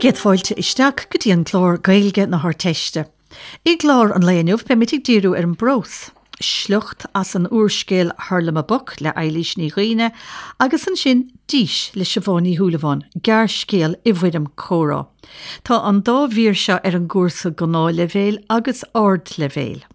Bhur gcéad fáilte isteach go dtí an clár Gaeilge na hArdteiste. I gclár an lae inniu beimid ag díriú ar an bprós, sliocht as an úrscéal Hurlamaboc le Eilís Ní Dhuibhne agus ansin Dís le Siobhán Ní Shúilleabháin, gearrscéal i bhfoirm comhrá. Tá an dá mhír seo ar an gcúrsa Gnáthleibhéil agus Ardleibhéil.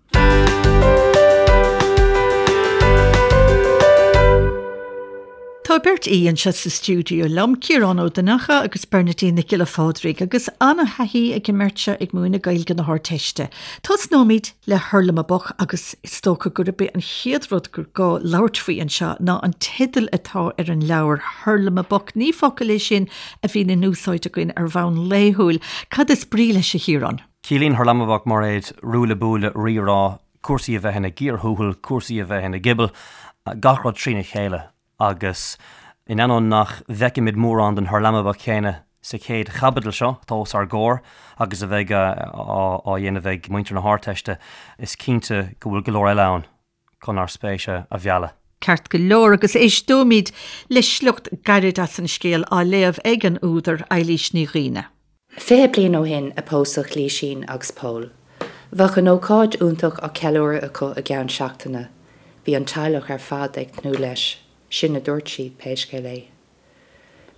Tá beirt aoi anseo sa stiúideo liom, Ciarán Ó Donnchadha agus Bernadine Nic Giolla Phádraig, agus an-thaithí ag an mbeirt seo ag múineadh Gaeilge na hArdteiste. Tosnóimid le Hurlamaboc agus is dócha gurb é an chéad rud gur gá labhairt faoi anseo ná an teideal atá ar an leabhar, Hurlamaboc. Ní focal é sin a bhíonn in úsáid againn ar bhonn laethúil. Cad is brí leis, a Chiaráin? Ciallaíonn Hurlamaboc, Mairéad, ruaille buaille, rírá, cúrsaí a bheith ina gcíor thuathail, cúrsaí a bheith ina gcibeal, gach rud trína chéile agus in ainneoin nach bhfeicimid mórán den hurlamaboc chéanna sa chéad chaibidil seo atá os ár gcomhair agus a bheidh á dhéanamh ag muintir na hArdteiste, is cinnte go bhfuil go leor eile ann chun ár spéis a mhealladh. Ceart go leor, agus éisteoimid le sliocht gairid as an scéal á léamh ag an údar, Eilís Ní Dhuibhne. 20 bliain ó shin a pósadh Lísín agus Pól. Bheadh an ócáid iontach á ceiliúradh acu i gceann seachtaine. Bhí an teaghlach ar fad ag tnúth leis, sin a dúirt siad, pé scéal é.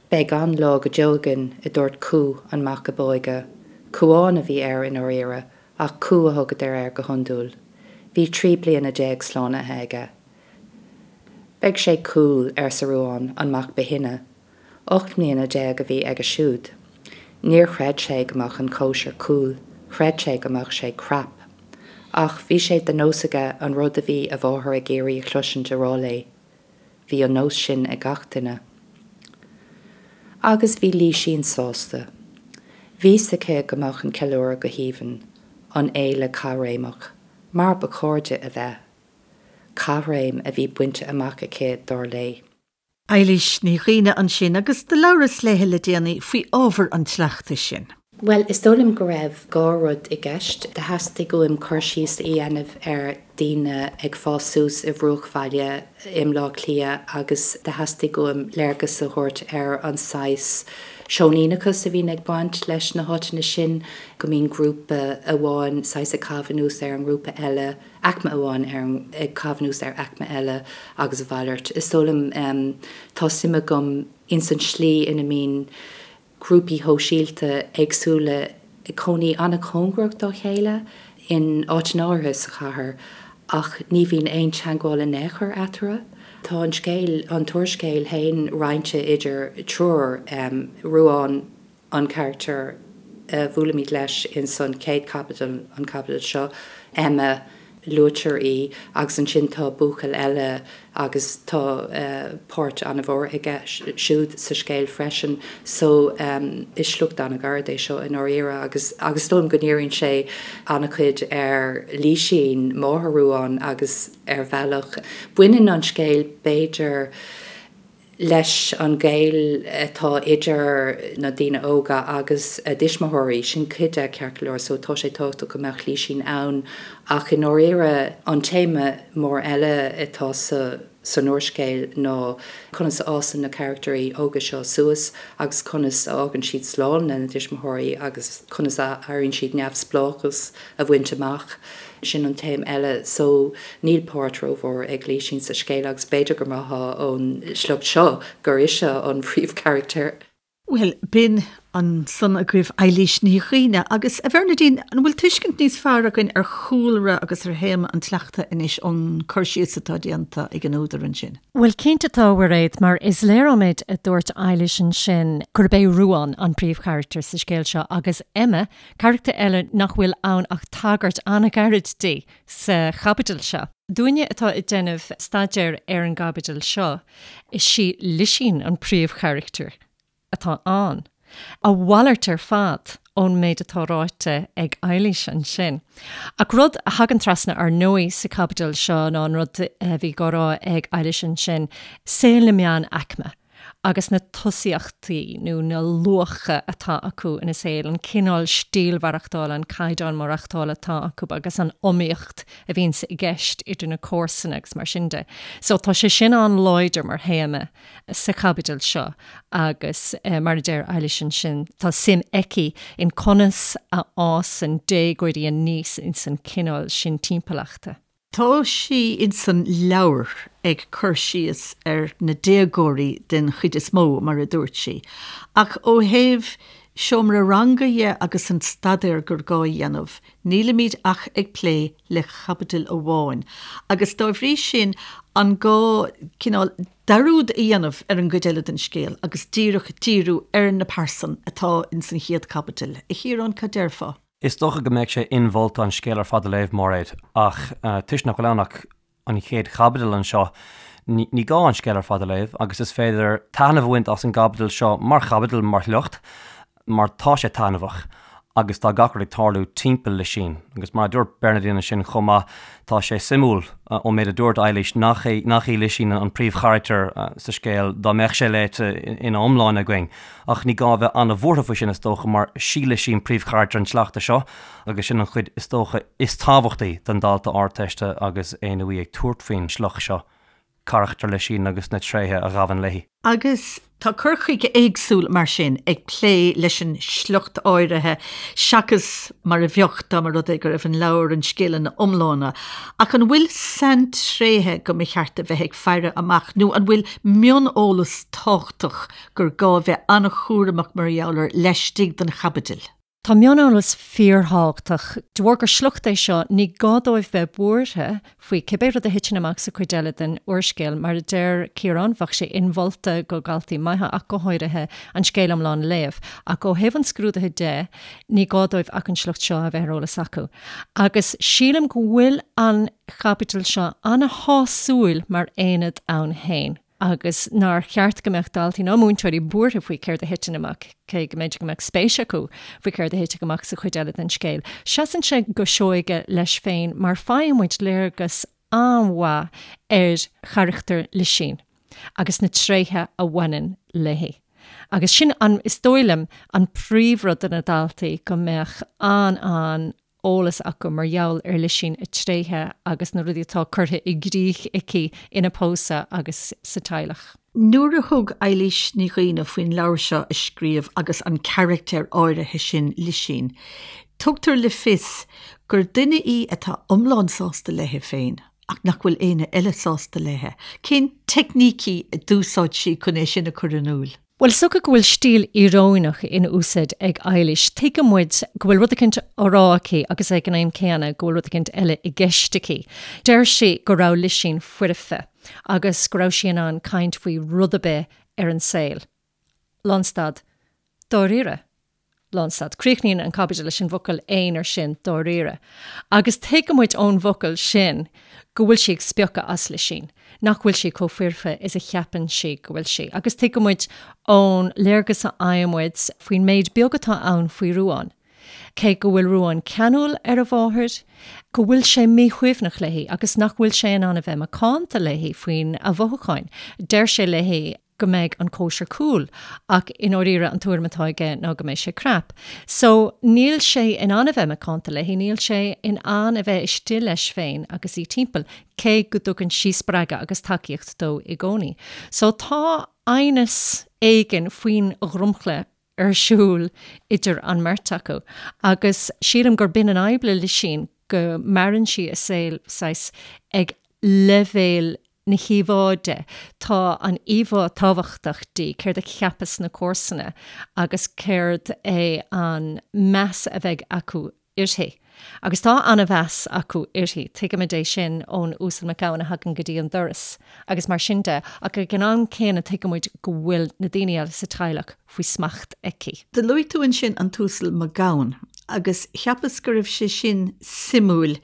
Beidh an-lá go deo againn, a dúirt Cú, an mac ab óige. Cúán a bhí air i ndáiríre, ach Cú a thugadar air go hiondúil. Bhí 13 bliana slánaithe aige. Beidh sé cool, arsa Ruán, an mac ba shine. 18 mbliana a bhí aige siúd. Níor chreid sé go mbeadh an chóisir cool, chreid sé go mbeadh sé crap. Ach bhí sé de nós aige an rud a bhí a mháthair ag iarraidh a chloisint a rá léi. Bhí an nós sin ag gach duine. Agus bhí Lísín sásta. Bhí 's aici go mbeadh an ceiliúradh go haoibhinn, an fhéile caithréimeach, mar ba chóir di a bheith. Caithréim a bhí bainte amach aici, dar léi. Eilís Ní Dhuibhne ansin agus do labhras léithe le déanaí faoi ábhar an tsleachta sin. Bhuel, is dóigh liom go raibh dhá rud i gceist. Do theastaigh uaim cur síos a dhéanamh ar daoine ag fás suas i bhruachbhaile i mBleá Cliath agus do theastaigh uaim léargas a thabhairt ar an saghas seoiníneachas a bhíonn ag baint leis na háiteanna sin, go mbíonn grúpa amháin saghas ag caitheamh anuas ar an ngrúpa eile. aicme amháin ar ag caitheamh anuas ar aicme eile agus a mhalairt. Is dóigh liom, tá suim agam ins an tslí ina mbíonn grúpaí shóisialta éagsúla ag cónaí an-chóngarach dá chéile in áiteanna áirithe sa chathair ach ní bhíonn aon teagmháil in aon chor eatarthu. Tá an scéal, an t-úrscéal féin roinnte idir triúr, Ruán, an carachtar a bhuailimid leis ins an chéad chaibidil, an chaibidil seo, Emma, luaitear í, agus ansin tá buachaill eile agus tá páirt an-mhór aige siúd sa scéal freisin. So, is sliocht an-ghairid é seo i ndáiríre agus agus is dóigh liom go ndíríonn sé an-chuid ar Lísín, máthair Ruán, agus ar bhealach baineann an scéal b'fhéidir, leis an ghaol atá idir na daoine óga agus a dtuismitheoirí. Sin cuid de, ceart go leor, so tá sé tábhachtach go mbeadh Lísín ann ach i ndáiríre an téama mór eile atá sa san úrscéal ná conas a fhásann na carachtairí óga seo suas agus conas a fhágann siad slán lena dtuismitheoirí agus conas a éiríonn siad neamhspleáchas a bhaint amach. Sin an téama eile. So, níl páirt rómhór ag Lísín sa scéal agus b'fhéidir go mbraithfeá ón sliocht seo gur ise an príomhcharachtar. Bhuel, b'in ansan agaibh Eilís Ní Dhuibhne. Agus, a Bhernadine, an bhfuil tuiscint níos fearr againn ar chúlra agus ar théama an tsleachta anois ón cur síos atá déanta ag an údar ansin? Bhuel, cinnte tá, a Mhairéad, mar is léir ón méid a dúirt Eilís ansin gurb é Ruán an príomhcharachtar sa scéal seo agus Emma, Carachtar eile nach bhfuil ann ach tagairt an-ghairid di sa chaibidil seo. Dúinne atá ag déanamh staidéir ar an gcaibidil seo, is í Lisín an príomhcharachtar atá ann. A mhalairt ar fad ón méid atá ráite ag Eilís ansin. Ach rud a thagann trasna ar ndóigh sa chaibidil seo ná an rud a bhí á rá ag Eilís ansin, saol na meánaicme. agus na tosaíochtaí nó na luacha atá acu ina saol, an cineál stíl mhaireachtála, an caighdeán maireachtála atá acu agus an iomaíocht a bhíonns i gceist idir na comharsana agus mar sin de. So tá sé sin an-láidir mar théama sa chaibidil seo agus mar a deir Eilís ansin, tá suim aici in conas a fhásann déagóirí aníos ins an cineál sin timpeallachta. Tá sí insan leabhar ag cur síos ar na déagóirí den chuid is mó, mar a dúirt sí, ach ó thaobh seomra ranga dhe agus an staidéar gur gá a dhéanamh, nílimid ach ag plé le caibidil amháin agus dá bhrí sin an gá cineál dearúd a dhéanamh ar an gcuid eile den scéal agus díreach díriú ar na pearsain atá insan chéad chaibidil. A Chiaráin, cad déarfá? Is dócha go mbeadh sé inmholta an scéal ar fad a léamh, Máiréad, ach toisc nach bhfuil ann ach an chéad chaibidil anseo, ní gá an scéal ar fad a léamh agus is féidir taitneamh a bhaint as an gcaibidil seo mar chaibidil, mar shliocht, mar tá sé taitneamhach agus tá gach rud ag tarlú timpeall Lisín. Agus mar a dúirt Bernadine ansin chomh maith, tá sé suimiúil ón méid a dúirt Eilís nach é nach í Lisín an príomhcharachtar sa scéal dá mbeadh sé léite ina iomláine againn. Ach ní gá a bheith an-bhuartha faoi sin, is dócha, mar sí Lisín príomhcharachtar an tsleachta seo, agus sin an chuid, is dócha, is tábhachtaí don dalta Ardteiste agus é nó í ag tabhairt faoin sliocht seo, carachtar Lisín agus na tréithe a ghabhann léi. Agus tá cur chuige éagsúil mar sin ag plé leis an sliocht áirithe seachas mar a bheadh dá mba rud é go raibh an leabhar, an scéal ina iomláine. Ach an bhfuil saintréithe go mba cheart a bheith ag faire amach nó an bhfuil mioneolas tábhachtach gur gá a bheith an-chúramach mar gheall air laistigh den chaibidil. Tá mioneolas fíorthábhachtach. De bharr gur sliocht é seo, ní gá dóibh bheith buartha faoi cibé rud a thiteann amach sa chuid eile den úrscéal. Mar a deir Ciarán, bheadh sé inmholta go dhaltaí maithe, ach go háirithe, an scéal iomlán a léamh. Ach ó thaobh an scrúdaithe de, ní gá dóibh ach an sliocht seo a bheith ar eolas acu. Agus sílim go bhfuil an chaibidil seo an-shásúil mar aonad ann féin. agus nár cheart go mbeadh daltaí ná múinteoirí buartha faoi céard a thiteann amach, cé go mb'fhéidir go mbeadh spéis acu faoi céard a thitfidh amach sa chuid eile den scéal. Seasann sé go seoighe leis féin mar faigheann muid léargas an-mhaith ar charachtar Lisín agus na tréithe a bhaineann léi. Agus sin an, is dóigh liom, an príomhrud do na daltaí, go mbeadh an-an eolas acu mar gheall ar Lisín, a tréithe agus na rudaí atá curtha i gcrích aici ina pósadh agus sa teaghlach. Nuair a thug Eilís Ní Dhuibhne faoin leabhar seo a scríobh agus an carachtar áirithe sin, Lisín, tugtar le fios gur duine í atá iomlán sásta léi féin ach nach bhfuil éinne eile sásta léi. Cén teicnící a d'úsáid sí chun é sin a chur in iúl? Bhuel, is dócha go bhfuil stíl íoróineach in úsáid ag Eilís. Tuigeann muid go bhfuil rud eicínt á rá aici agus ag an am céanna go bhfuil rud eicínt eile i gceist aici. Deir sí go raibh Lisín foirfe agus go raibh sí in ann caint faoi rud ar bith ar an saol. Lánstad. Dáiríre. Lánstad. Críochnaíonn an chaibidil leis an bhfocal aonair sin, dáiríre. Agus tuigeann muid ón bhfocal sin go bhfuil sí ag spiocadh as Lisín, nach bhfuil sí chomh foirfe is a cheapann sí go bhfuil sí. Agus tuigeann muid ón léargas a fhaigheann muid faoin méid beag atá ann faoi Ruán, cé go bhfuil Ruán ceanúil ar a mháthair, go bhfuil sé míshuaimhneach léi agus nach bhfuil sé in ann a bheith macánta léi faoina mhothúcháin. Deir sé léi. go mbeidh an cóisir cool ach i ndáiríre an tuairim atá aige ná go mbeidh sé crap. So níl sé in ann a bheith macánta léi, níl sé in ann a bheith istigh leis féin agus í timpeall, cé go dtugann sí spreagadh agus tacaíocht dó i gcónaí. So tá aighneas éigin faoin dhromchla ar siúl idir an mbeirt acu agus sílim gur b'in an fhadhb le Lisín, go maireann sí a saol saghas ag leibhéal na híomhá de. Tá an íomhá tábhachtach di, céard a cheapfas na comharsana agus céard é an meas a bheidh acu uirthi. Agus tá an-mheas acu uirthi, tuigimid é sin ón Uasal Mac Gabhann a thagann go dtí an doras agus mar sin de, ach ag an am céanna tuigimid go bhfuil na daoine eile sa teaghlach faoi smacht aici. Do luaigh tú ansin an tUasal Mac Gabhann agus cheapas go raibh sé sin suimiúil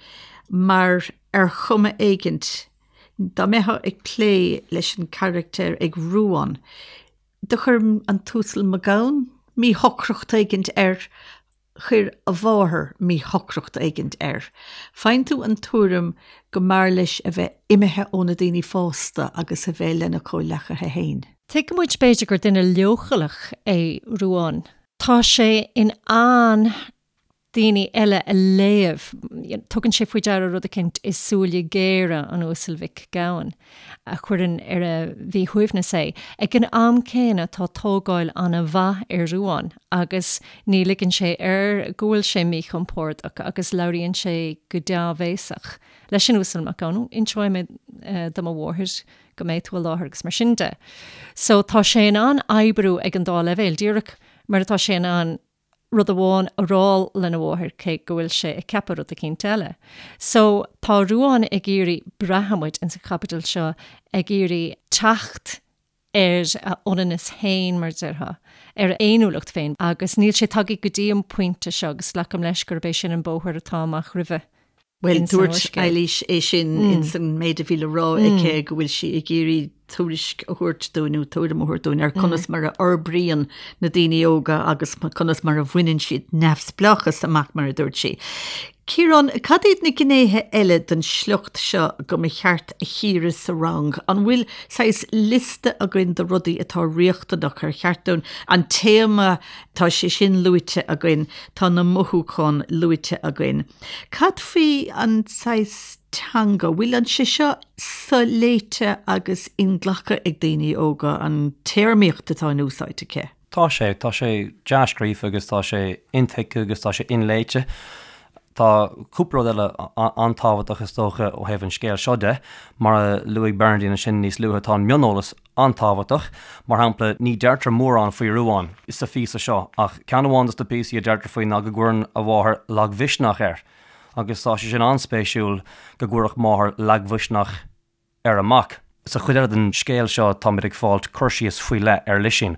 mar ar chuma éigint, dá mbeifeá ag plé leis an charachtar ag Ruán, do chuir an tUasal Mac Gabhann míshocracht éigint air, chuir a mháthair míshocracht éigint air. Faigheann tú an tuairim go mb'fhearr leis a bheith imithe ó na daoine fásta agus a bheith lena chomhleacaithe féin. Tuigeann muid b'fhéidir gur duine leochaileach é Ruán. Tá sé in ann daoine eile a léamh. Tugann sé faoi deara rud eicínt i súile géara an Uasail Mhic Gabhann a chuireann ar a mhíshuaimhneas é. Ag an am céanna tá tógáil an-mhaith ar Ruán agus ní ligeann sé air go bhfuil sé míchompordach agus labhraíonn sé go dea-bhéasach leis an Uasal Mac Gabhann, Inseoidh mé do mo mháthair go mbeidh tú i láthair agus mar sin de. So tá sé in ann oibriú ag an dá leibhéal, díreach mar atá sé in ann rud amháin a rá lena mháthair cé go bhfuil sé ag ceapadh rud eicínt eile. So tá Ruán ag iarraidh, braitheann muid ins an chaibidil seo, ag iarraidh teacht ar a ionannas féin, mar a déarfá, ar a fhéiniúlacht féin agus níl sé tagtha go dtí an pointe seo agus glacaim leis gurb é sin an bóthar atá amach roimhe. Bhuel, dúirt Eilís é sin ins an méid a bhí le rá aici go bhfuil sí ag iarraidh tuairisc a thabhairt dúinn nó tuairim a thabhairt dúinn ar conas mar a fhorbraíonn na daoine óga agus conas mar a bhaineann siad neamhspleáchas amach, mar a dúirt sí. Ciarán, cad iad na gnéithe eile den sliocht seo go mba cheart a chíoradh sa rang? An bhfuil saghas liosta againn de rudaí atá riachtanach, ar cheart dúinn an téama, tá sé sin luaite againn, tá na mothúcháin luaite againn. Cad faoi an saghas teanga? Bhfuil an sé seo soléite agus inghlactha ag daoine óga, an téarmaíocht atá in úsáid aici? Tá sé. Tá sé dea-scríofa agus tá sé intuigthe agus tá sé inléite. Tá cúpla rud eile an-tábhachtach is dócha ó thaobh an scéil seo de. Mar a luaigh Bernardine ansin níos luaithe, tá an mioneolas an-tábhachtach. Mar shampla, ní deirtear mórán faoi Ruán sa phíosa seo ach ceann amháin dos na píosaí a deirtear faoi ná go gcuireann a mháthair lagmhisneach air. Agus tá sé sin an-spéisiúil go gcuirfeadh máthair lagmhisneach ar a mac. Sa chuid eile den scéal seo táimid ag fáilt cur síos faoi leith ar Lisín,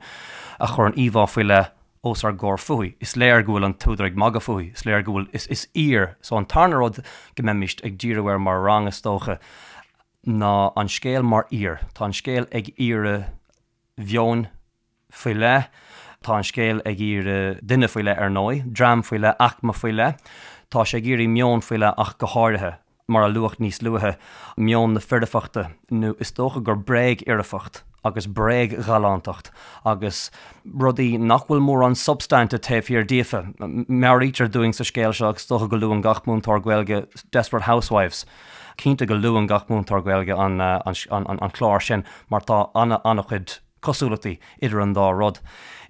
a chuireann íomhá faoi leith os ár gcomhair fúithi. Is léir go bhfuil an t-údar ag magadh fúithi, is léir go bhfuil, is, is aoir. So an tarna rud go mbeimist ag díriú air mar rang, is dócha, ná an scéal mar aoir. Tá an scéal ag iarraidh mheoin faoi leith. Tá an scéal ag iarraidh duine faoi leith, ar ndóigh, dream faoi leith, aicme faoi leith. Tá sé ag iarraidh meon faoi leith ach go háirithe, mar a luadh níos luaithe, meon na foirfeachta, nó is dócha gur bréag-fhoirfeacht agus bréag-ghalántacht agus rudaí nach bhfuil mórán substainte taobh thiar díofa. Meabhraítear dúinn sa scéal seo, agus is dócha go luann gach múinteoir Gaeilge Desperate Housewives, cinnte go luann gach múinteoir Gaeilge an clár sin mar tá an-chuid cosúlachtaí idir an dá rud,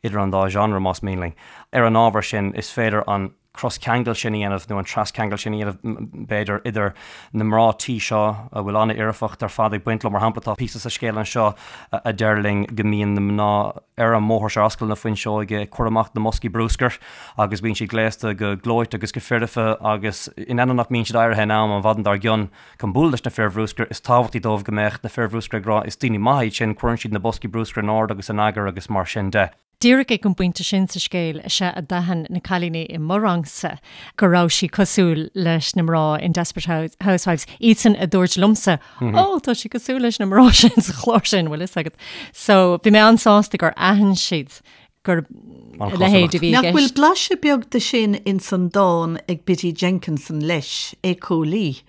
idir an dá genre, más mian linn. Ar an ábhar sin, is féidir an croscheangal sin a dhéanamh, nó an trascheangal sin a dhéanamh, b'fhéidir, idir na mná tí seo, a bhfuil an-fhoirfeacht ar fad ag baint leo. Mar shampla, tá píosa sa scéal anseo a deir linn go mbíonn na mná ar an mbóthar seo, ar ascaill na Fuinseoige, ag cur amach na mboscaí bruscair agus bíonn siad gléasta go gleoite agus go foirfe agus in ainneoin nach mbíonn siad éirithe in am an mhaidin dár gcionn, Chun bualadh leis na fir bhruscair, is tábhachtaí dóibh go mbeadh na fir bhruscair ag rá 'is daoine maithe iad sin, cuireann siad na boscaí bruscair in ord agus in eagar agus mar sin de. Díreach ag an bpointe sin sa scéal is ea a d'aithin na cailíní i mo rangsa go raibh sí cosúil leis na mná in Desperate Housewives, iadsan a dúirt liomsa 'Ó, tá sí cosúil leis na mná sin sa chlár sin, bhfuil fhios agat. So, bhí mé an-sásta gur aithin siad gur a leithéid a bhí i Nach bhfuil gceist. blaiseadh beag de sin ins an dán ag Biddy Jenkinson leis, Éiceolaí,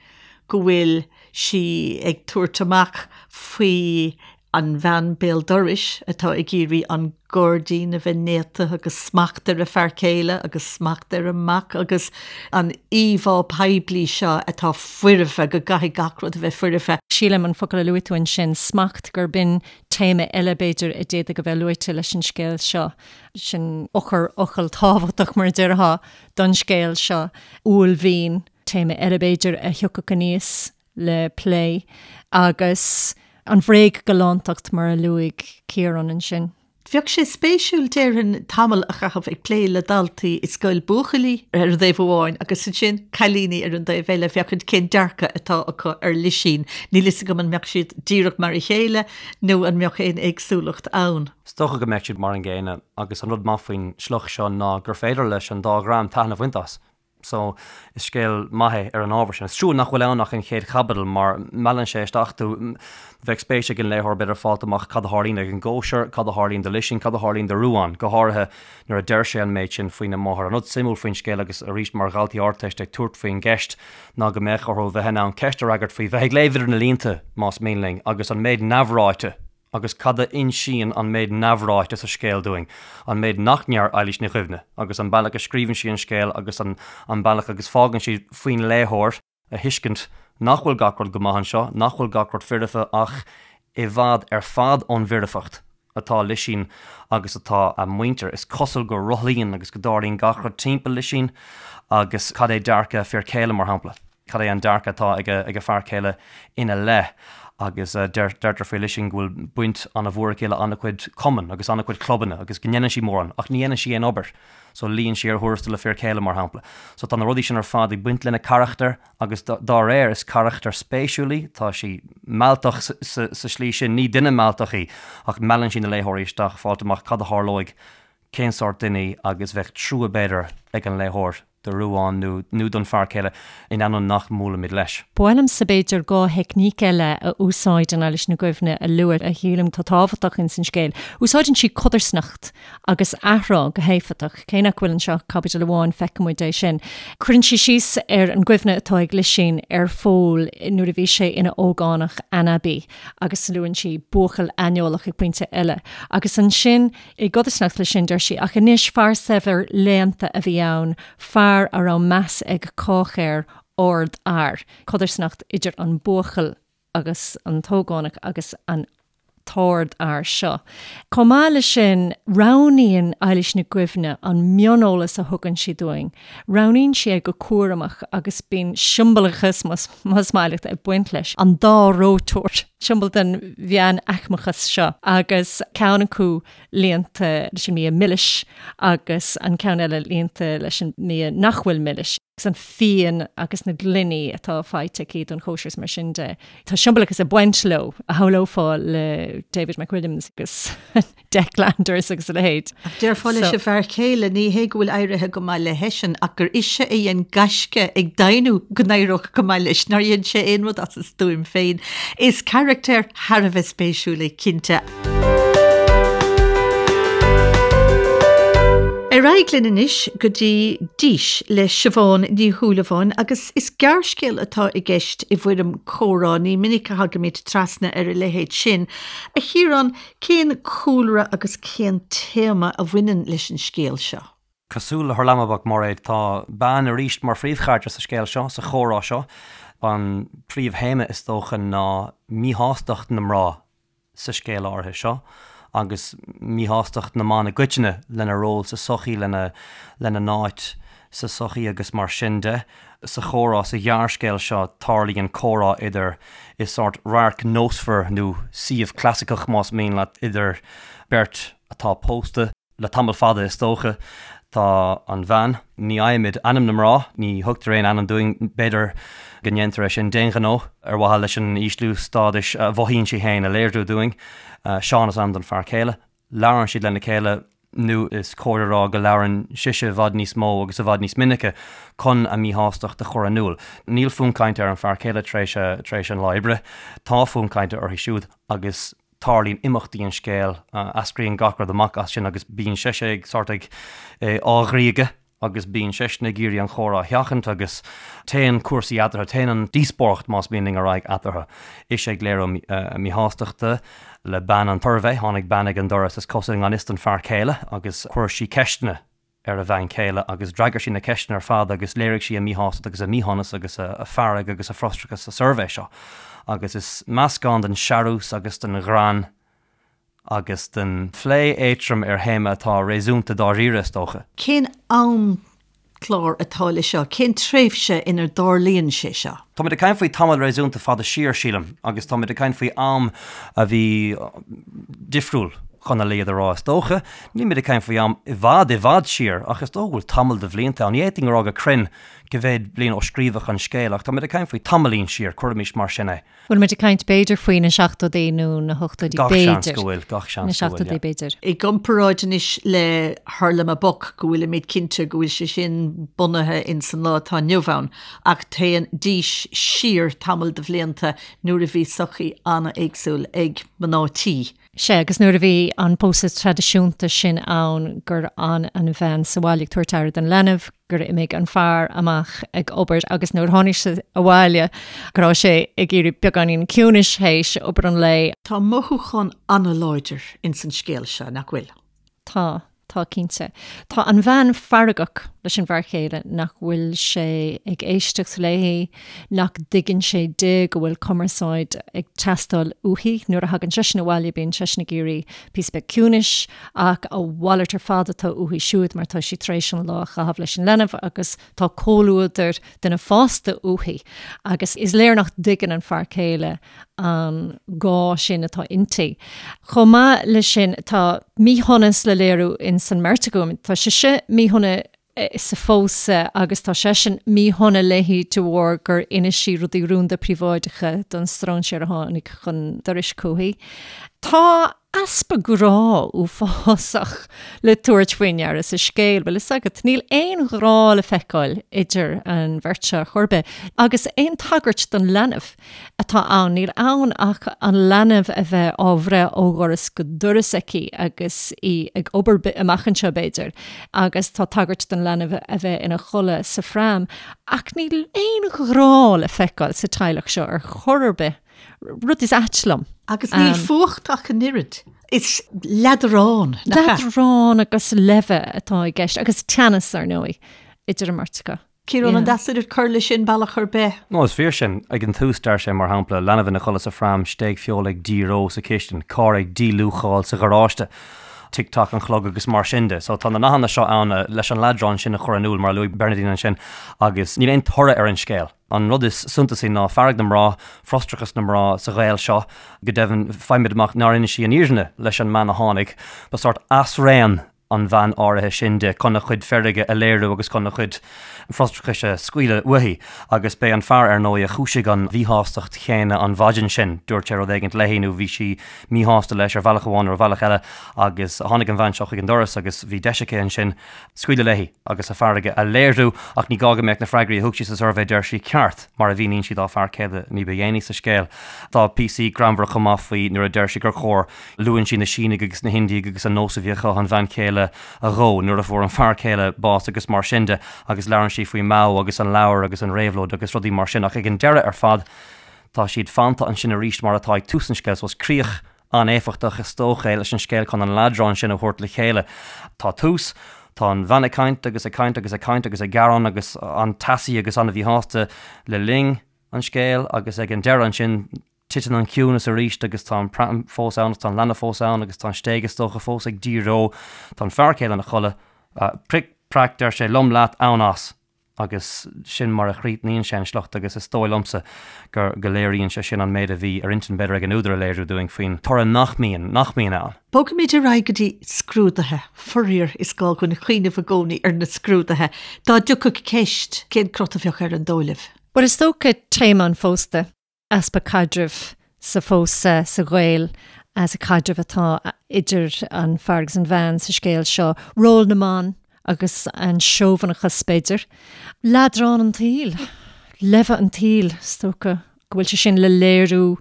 go bhfuil sí ag tabhairt amach faoi an bhean béal dorais atá ag iarraidh an gairdín a bheith néata agus smacht ar a fear céile agus smacht ar a mac agus an íomhá poiblí seo atá foirfe, go gcaithfidh gach rud a bheith foirfe. Sílim an focal a luaigh tú ansin, smacht, gurb in Téama eile, b'fhéidir, a d'fhéadfadh a bheith luaite leis an scéal seo, sin eochairfhocal tábhachtach, mar a déarfá, don scéal seo, uaillmhian, téama eile, b'fhéidir, a thiocfadh aníos le plé, agus an bhréag-ghalántacht, mar a luaigh Ciarán ansin. Bheadh sé spéisiúil, déarfainn, tamall a chaitheamh ag plé le daltaí i scoil buachaillí ar an dtaobh amháin agus ansin cailíní ar an dtaobh eile, féachaint cén dearcadh atá acu ar Lisín. Níl fhios agam an mbeadh siad díreach mar a chéile nó an mbeadh aon éagsúlacht ann. Is dócha go mbeadh siad mar an gcéanna agus an rud maith faoin sliocht seo ná gur féidir leis an dá dhream taitneamh a bhaint as. So, is scéal maith é ar an ábhar sin. Is trua nach bhfuil ann ach an chéad chaibidil mar meallann sé isteach tú. Bheadh spéis ag an léitheoir b'fhéidir fáilt amach cad a tharlaíonn ag an gcóisir, cad a tharlaíonn do Lisín, cad a tharlaíonn do Ruán, go háirithe nuair a deir sé an méid sin faoina máthair. An rud suimiúil faoin scéal agus arís mar dhaltaí Ardteiste ag tabhairt faoin gceist ná go mbeadh orthu bheith in ann ceist a fhreagairt faoi bheith ag léamh idir na línte, más mian linn, agus an méid neamhráite. Agus cad a insíonn an méid neamhráite sa scéal dúinn, an méid nach ndeir Eilís Ní Dhuibhne, agus an bealach a scríobhann sí an scéal agus an an bealach agus fágann sí faoin léitheoir a thuiscint nach bhfuil gach rud go maith anseo, nach bhfuil gach rud foirfe ach i bhfad ar fad ón bhfoirfeacht atá Lisín agus atá a muintir. Is cosúil go rothlaíonn agus go dtarlaíonn gach rud timpeall Lisín agus cad é dearcadh a fir céile, mar shampla? Cad é an dearcadh atá ag a fear céile ina leith? Agus deirtear faoi Lisín go bhfuil baint an-mhór aici le an-chuid cumann agus an-chuid clubanna agus go ndéanann sí mórán ach ní dhéanann sí aon obair. So luíonn sí ar thuarastal a fir céile, mar shampla. So tá na rudaí sin ar fad ag baint lena carachtar agus dá réir is carachtar spéisiúil í, tá sí mealltach sa slí sin, ní duine mealltach í ach meallann sí na léitheoirí isteach fáilt amach cad a tharlóidh, cén sórt duine í agus bheadh trua b'fhéidir ag an léitheoir. do Ruán nó nó don fear céile, in ainneoin nach mbuailimid leis. Ba mhaith liomsa b'fhéidir 2 theicníc eile a úsáideann Eilís Ní Dhuibhne a lua a shílim atá tábhachtach ins an scéal. Úsáideann sí codarsnacht agus athrá go héifeachtach. Cé nach bhfuil anseo ach caibidil amháin feiceann muid é sin. Cuireann sí síos ar an gcuimhne atá ag Lisín ar Phól nuair a bhí sé ina ógánach anabaí agus luann sí buachaill aineolach ag pointe eile. Agus ansin I gcodarsnacht leis sin, deir sí, ach anois, fear saibhir léannta a bhí ann, fear a raibh meas ag cách air, ardfhear. Codarsnacht idir an buachaill agus an t-ógánach agus an t-ardfhear seo. Chomh maith leis sin, roghnaíonn Eilís Nic Dhuibhne an mioneolas a thugann sí dúinn. Roghnaíonn sí é go cúramach agus bíonn siombalachas, más maith leat, ag baint leis. An dá reoiteoir, siombail den mheánaicmeachas seo, agus ceann acu líonta leis an mbia milis agus an ceann eile líonta leis an mbia nach bhfuil milis, agus an fíon agus na gloiní atá faighte aici don chóisir is mar sin de. Tá siombalachas ag baint leo, a shamhlófá le David McWilliams agus. Dec Landers agus a leithéid. Ach déarfá leis an bhfear céile, ní hé go bhfuil éirithe go maith le heisean, ach gur ise a dhein gaisce ag deimhniú go n-éireodh go maith leis, nár dhein sé aon rud as a stuaim féin. Is carachtar thar a bheith spéisiúil é, cinnte. Ar aghaidh linn anois go dtí Dís le Siobhán Ní Shúilleabháin agus is gearrscéal atá i gceist i bhfoirm comhrá, ní minic a thagaimid trasna ar a leithéid sin. A Chiaráin, Cén cúlra agus cén téama a bhaineann leis an scéal seo? Cosúil le Hurlamaboc, Mairéad, tá bean arís mar phríomhcharachtar sa scéal seo, sa chomhrá seo. An príomhthéama is dócha ná míshástacht na mná sa scéal áirithe seo agus míshástacht na mban i gcoitinne lena ról sa tsochaí, lena n-áit sa tsochaí agus mar sin de. Sa chomhrá sa ghearrscéal seo tarlaíonn comhrá idir, i sórt radharc nósmhar nó suíomh clasaiceach más mian leat, idir beirt atá pósta le tamall fada is dócha. Tá an bhean, ní fhaighimid ainm na mná, ní thugtar aon ainm dúinn, b'fhéidir go ndéantar é sin d'aon ghnó ar mhaithe leis an ísliú stádais a mhothaíonn sí féin a léiriú dúinn. Seán is ainm don fear céile. Labhrann siad lena chéile, nó is cóir a rá go labhrann sise i bhfad níos mó agus i bhfad níos minice chun a míshástacht a chur in iúl. Níl fonn cainte ar an fear céile tar éis tar éis an lá oibre. Tá fonn cainte uirthi siúd agus tarlaíonn imeachtaí an scéil, eascraíonn gach rud amach as sin agus bíonn sise ag sórt ag á ghriogadh. agus bíonn seisean ag iarraidh an chomhrá a sheachaint agus téann cúrsaí eatarthu, téann an díospóireacht más mian linn ar aghaidh eatarthu. Ise ag léiriú a míshástachta le bean an tsuirbhé, tháinig bean ag an doras is cosúil i ngan fhios don fear céile agus chuir sí ceisteanna ar a bhean chéile agus d'fhreagair sí na ceisteanna ar fad agus léirigh sí a míshástacht agus a míshonas agus a fearg agus a frustrachas sa suirbhé seo agus is meascán den searús agus den ghreann agus den phlé éadtrom ar théama atá réasúnta dáiríre, is dócha. Cén amchlár atá le seo? Cén tréimhse inar dtarlaíonn sé seo? Táimid ag caint faoi tamall réasúnta fada siar, sílim, agus táimid ag caint faoi am a bhí difriúil, chun a laghad a rá, is dócha. Nílimid ag caint faoi am i bhfad, i bhfad siar, ach is dócha go bhfuil tamall de bhlianta ann. Ní fhéadfainn a rá go cruinn cá mhéad bliain ó scríobhadh an scéal, ach táimid ag caint faoi tamaillín siar, cuirimis mar sin é. Bhfuil muid ag caint b'fhéidir faoi na seachtóidí nó na hochtóidí Gach seans b'fhéidir. go bhfuil, gach seans Na go bhfuil, seachtóidí yeah. b'fhéidir. I gcomparáid anois le Hurlamaboc go bhfuilimid cinnte go bhfuil sé sin bunaithe ins an lá atá inniu ann ach téann Dís siar tamall de bhlianta nuair a bhí sochaí an-éagsúil ag mná tí. Sea, agus nuair a bhí an pósadh traidisiúnta sin ann, gur fhan an bhean sa bhaile ag tabhairt aire don leanbh, gur imigh an fear amach ag obair agus nuair a tháinig sé abhaile go raibh sé ag iarraidh beagáinín ciúnais théis obair an lae. Tá mothúchán an-láidir ins an scéal seo, nach bhfuil? Tá, tá cinnte. Tá an bhean feargach leis an bhfear céile nach bhfuil sé ag éisteacht léi, nach dtuigeann sé di go bhfuil cumarsáid ag teastáil uaithi. Nuair a thagann seisean abhaile bíonn seisean ag iarraidh píosa beag ciúnais ach a mhalairt ar fad atá uaithi siúd mar tá sí tar éis an lá a chaitheamh leis an leanbh agus tá comhluadar duine fásta uaithi agus is léir nach dtuigeann an fear céile an gá sin atá inti. Chomh maith leis sin, tá míshonas le léiriú ins an mbeirt acu. Tá sise míshona sa phósadh agus tá seisean míshona léi de bharr gur inis sí rudaí rúnda príobháideacha don stróinséir a tháinig chun dorais chuici. Tá easpa grá uafásach le tabhairt faoi ndeara sa scéal, bhfuil fhios agat. Níl aon ghrá le feiceáil idir an bheirt seo ar chor ar bith agus aon tagairt don leanbh. atá ann. Níl ann ach an leanbh a bheith á bhreith ó dhoras go doras aici agus í ag obair amach anseo, b'fhéidir, agus tá tagairt don leanbh a bheith ina chodladh sa phram. Ach níl aon ghrá le feiceáil sa teaghlach seo ar chor ar bith, rud is ait liom. Agus níl fuacht ach an oiread. Is leadrán, nach ea? Leadrán agus leimhe atá i gceist, agus teannas, ar ndóigh, idir an mbeirt acu. Ciarán, an deas duit cur leis sin bealach ar bith? No, is fíor sin. Ag an tús, deir sé, mar shampla, leanbh ina chodladh sa phram, stéig feola ag díoró sa chistin, carr ag díluacháil sa gharáiste, tic tac an chlog agus mar sin de. So tá na nathanna seo ann leis an leadrán sin a chur in iúl, mar a luaigh Bernadine ansin, agus níl aon toradh ar an scéal. An rud is suntasaí ná fearg na mná, frustrachas na mná sa ghaol seo. Go deimhin, faighimid amach nár inis sí an fhírinne leis an mbean a tháinig. Ba sórt asraon an bhean áirithe sin di chun a cuid feirge a léiriú agus chun a cuid frustrachais a scaoileadh uaithi. Agus b'é an fear, ar ndóigh, a chúisigh an mhíshástacht chéanna an mhaidin sin. Dúirt sé rud éigint léi nó bhí sí míshásta leis ar bhealach amháin nó ar bhealach eile agus tháinig an bhean seo chuig an doras agus bhí deis aici ansin scaoileadh léi agus a fearg a léiriú. Ach ní gá go mbeadh na freagraí a thug sí sa suirbhé, deir sí, ceart, mar a mhíníonn sí dá fear céile ní ba dhéanaí sa scéal. Tá píosaí greannmhara chomh maith faoi nuair a deir sí gur chóir Luann sí na Sínigh agus na hIndiaigh agus an nós a bhí acu an bhean chéile a dhó nuair a fuair an fear céile bás agus mar sin de agus labhrann sí faoi Mao agus an leabhar agus an réabhlóid agus rudaí mar sin ach ag an deireadh ar fad tá siad fanta ansin arís mar atá ag tús an scéil so is críoch an-éifeachtach is dócha é leis an scéal chun an leadrán sin a thabhairt le chéile. Tá tús, tá an bhean ag caint agus ag caint agus ag caint agus ag gearán agus an-teasaí agus an-mhíshásta le linn an scéil agus ag an deireadh ansin Titeann an ciúnas arís agus tá an pram fós ann agus tá an leanbh fós ann agus tá an stéig is dócha fós ag díoró. Tá an fear céile ina chodladh. Pric, prac, deir sé, liom leat, ann as! Agus sin mar a chríochnaíonn sé an sliocht agus is dóigh liomsa gur, go léiríonn sé sin an méid a bhí ar intinn b'fhéidir ag an údar a léiriú dúinn faoin toradh nach mbíonn, nach mbíonn ann. Bogfaimid ar aghaidh go dtí scrúduithe. Faraor, is gá dhúinn cuimhneamh i gcónaí ar na scrúduithe. Dá dtiocfadh ceist, cén crot a bheadh air an dóigh libh? Bhuel, is dócha téama an phósta. easpa caidrimh sa phósadh, sa ghaol, sa chaidreamh atá idir an fear agus an bhean sa scéal seo, ról na mban agus an seobhanachas, b'fhéidir. Leadrán an tsaoil, leimhe an tsaoil, is dócha go bhfuil sé sin le léiriú,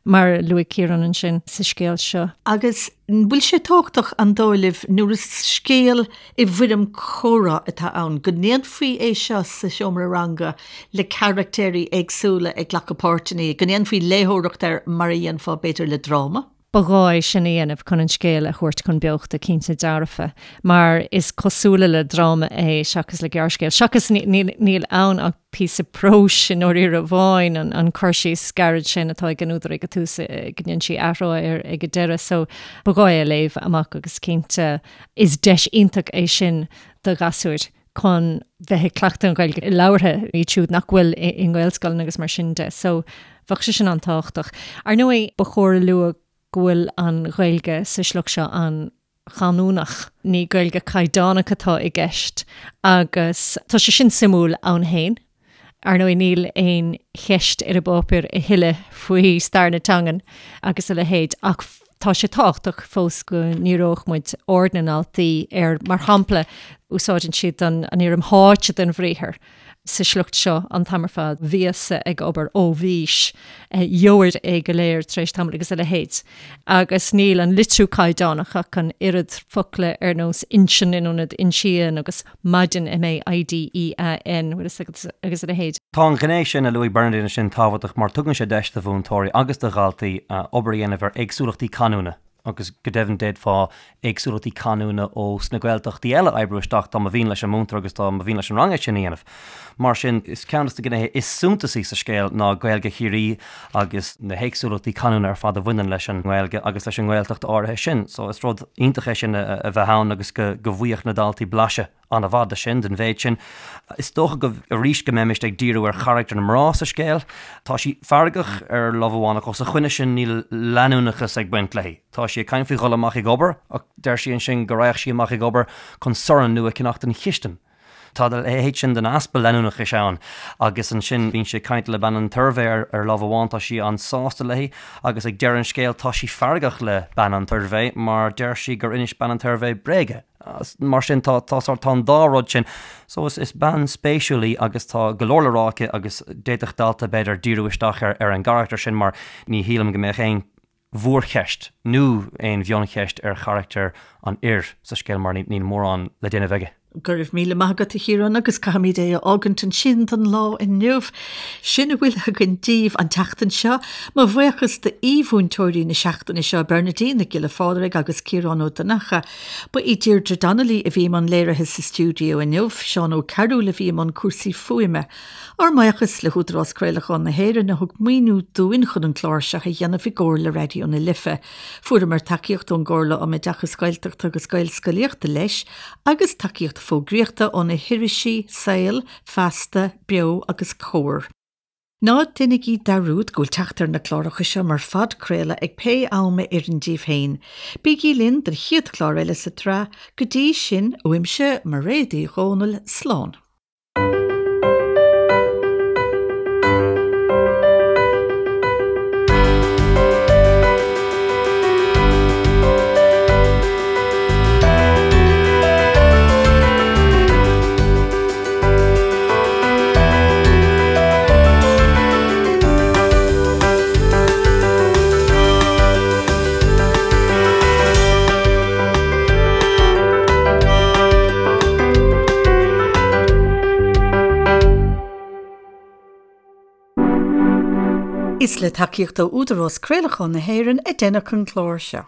mar a luaigh Ciarán ansin, sa scéal seo. Agus an bhfuil sé tábhachtach, an dóigh libh, nuair is scéal i bhfoirm comhrá atá ann, go ndéanfaí é seo sa seomra ranga le carachtéirí éagsúla ag glacadh páirteanna, go ndéanfaí léitheoireacht air mar a dhéanfá, b'fhéidir, le dráma? Ba ghá é sin a dhéanamh chun an scéal a thabhairt chun beochta, cinnte dearfa, mar is cosúla le dráma é seachas le gearrscéal. Seachas níl ann ach píosa próis i ndáiríre amháin, an cur síos gairid sin atá ag an údar ag an tús, go ndéanann sí athrá air ag an deireadh. So ba ghá é a léamh amach agus cinnte is deis iontach é sin do ghasúir chun bheith ag cleachtadh an Ghaeilge labhartha, iad siúd nach bhfuil i nGaelscoileanna agus mar sin de. So bheadh sé sin an-tábhachtach. Ar ndóigh, ba chóir a lua go bhfuil an Ghaeilge sa sliocht seo an-chanúnach. Ní Gaeilge caighdeánach atá i gceist agus tá sé sin suimiúil ann féin. Ar ndóigh, níl aon cheist ar an bpáipéar a thuilleadh faoi stair na teangan agus a leithéid ach tá sé tábhachtach fós go ndíreodh muid aird na ndaltaí ar, mar shampla. Úsáideann siad an fhoirm tháite den bhriathar sa sliocht seo an t-am ar fad, bhíos-sa ag obair, ó bhís, gheobhair é go léir tar éis tamaill agus a leithéid. Agus níl an litriú caighdeánach ach an oiread, focla ar nós inseann in ionad insíonn agus maidin, M-A-I-D-E-A-N, bhfuil fhios agat, agus a leithéid. Tá an ghné sin a luaigh Bernadine ansin tábhachtach mar tugann sé deis do mhúinteoirí agus do dhaltaí obair a dhéanamh ar éagsúlachtaí canúna. agus go deimhin d'fhéadfá éagsúlachtaí canúna ó sna Gaeltachtaí eile a oibriú isteach dá mba mhian leis an múinteoir agus dá mba mhian leis an rang é sin a dhéanamh. Mar sin, is ceann de na gnéithe is suntasaí sa scéal ná Gaeilge Chiarraí agus na héagsúlachtaí canúna ar fad a bhaineann leis an nGaeilge agus leis an nGaeltacht áirithe sin. So is rud iontach é sin a bheith ann agus go bhfaigheadh na daltaí blaiseadh. an-mhaith de sin, den mhéid sin. Is dócha go, arís, go mbeimist ag díriú ar charachtar na mná sa scéal. Tá sí feargach ar lámh amháin ach os a choinne sin níl leanúnachas ag baint léi. Tá sí ag caint faoi dhul amach ag obair ach deir sí ansin go raghadh sí amach ag obair chun sorn nua a cheannach don chistin. Tá a leithéid sin den easpa leanúnachais ann agus ansin bíonn sí ag caint le bean an tsuirbhé ar lámh amháin, tá sí an-sásta léi agus ag deireadh an scéil tá sí feargach le bean an tsuirbhé mar deir sí gur inis bean an tsuirbhé bréaga. Mar sin tá tá sórt tá an dá rud sin. So is is bean spéisiúil í agus tá go leor le rá aici agus d'fhéadfadh dalta b'fhéidir díriú isteach ar ar an gcarachtar sin mar ní shílim go mbeadh aon mhórcheist nó aon mhioncheist ar charachtar an fhir sa scéal mar níl mórán le déanamh aige. Go raibh míle maith agat a Chiaráin agus caithfimid é a fhágaint ansin don lá inniu. Sin a bhfuil againn daoibh an tseachtain seo. Mo bhuíochas d'aoi-mhúinteoirí na seachtaine seo, Bernadine Nic Giolla Phádraig agus Ciarán Ó Donnchadha. Ba í Deirdre Donnelly a bhí i mbun léirithe sa stiúideo inniu, Seán Ó Cearúil a bhí i mbun cúrsaí fuaime. Ár mbuíochas le hÚdarás Craolacháin na hÉireann a thug maoiniú dúinn chun an clár seo a dhéanamh i gcomhar le Raidió na Life. Fuaireamar tacaíocht ón gComhairle um Oideachas Gaeltachta agus Gaelscolaíochta leis agus tacaíocht fógraíochta ó na hirisí Saol, Feasta, Beo agus Comhar. Ná déanaigí dearúd go bhfuil teacht ar na cláracha seo mar phodchraoladh ag pé am a oireann daoibh féin. Bígí linn don chéad chlár eile sa tsraith. Go dtí sin, uaimse, Mairéad Uí Dhomhnaill, slán. Is le tacaíocht ó Údarás Craolacháin na hÉireann a deineadh an clár seo.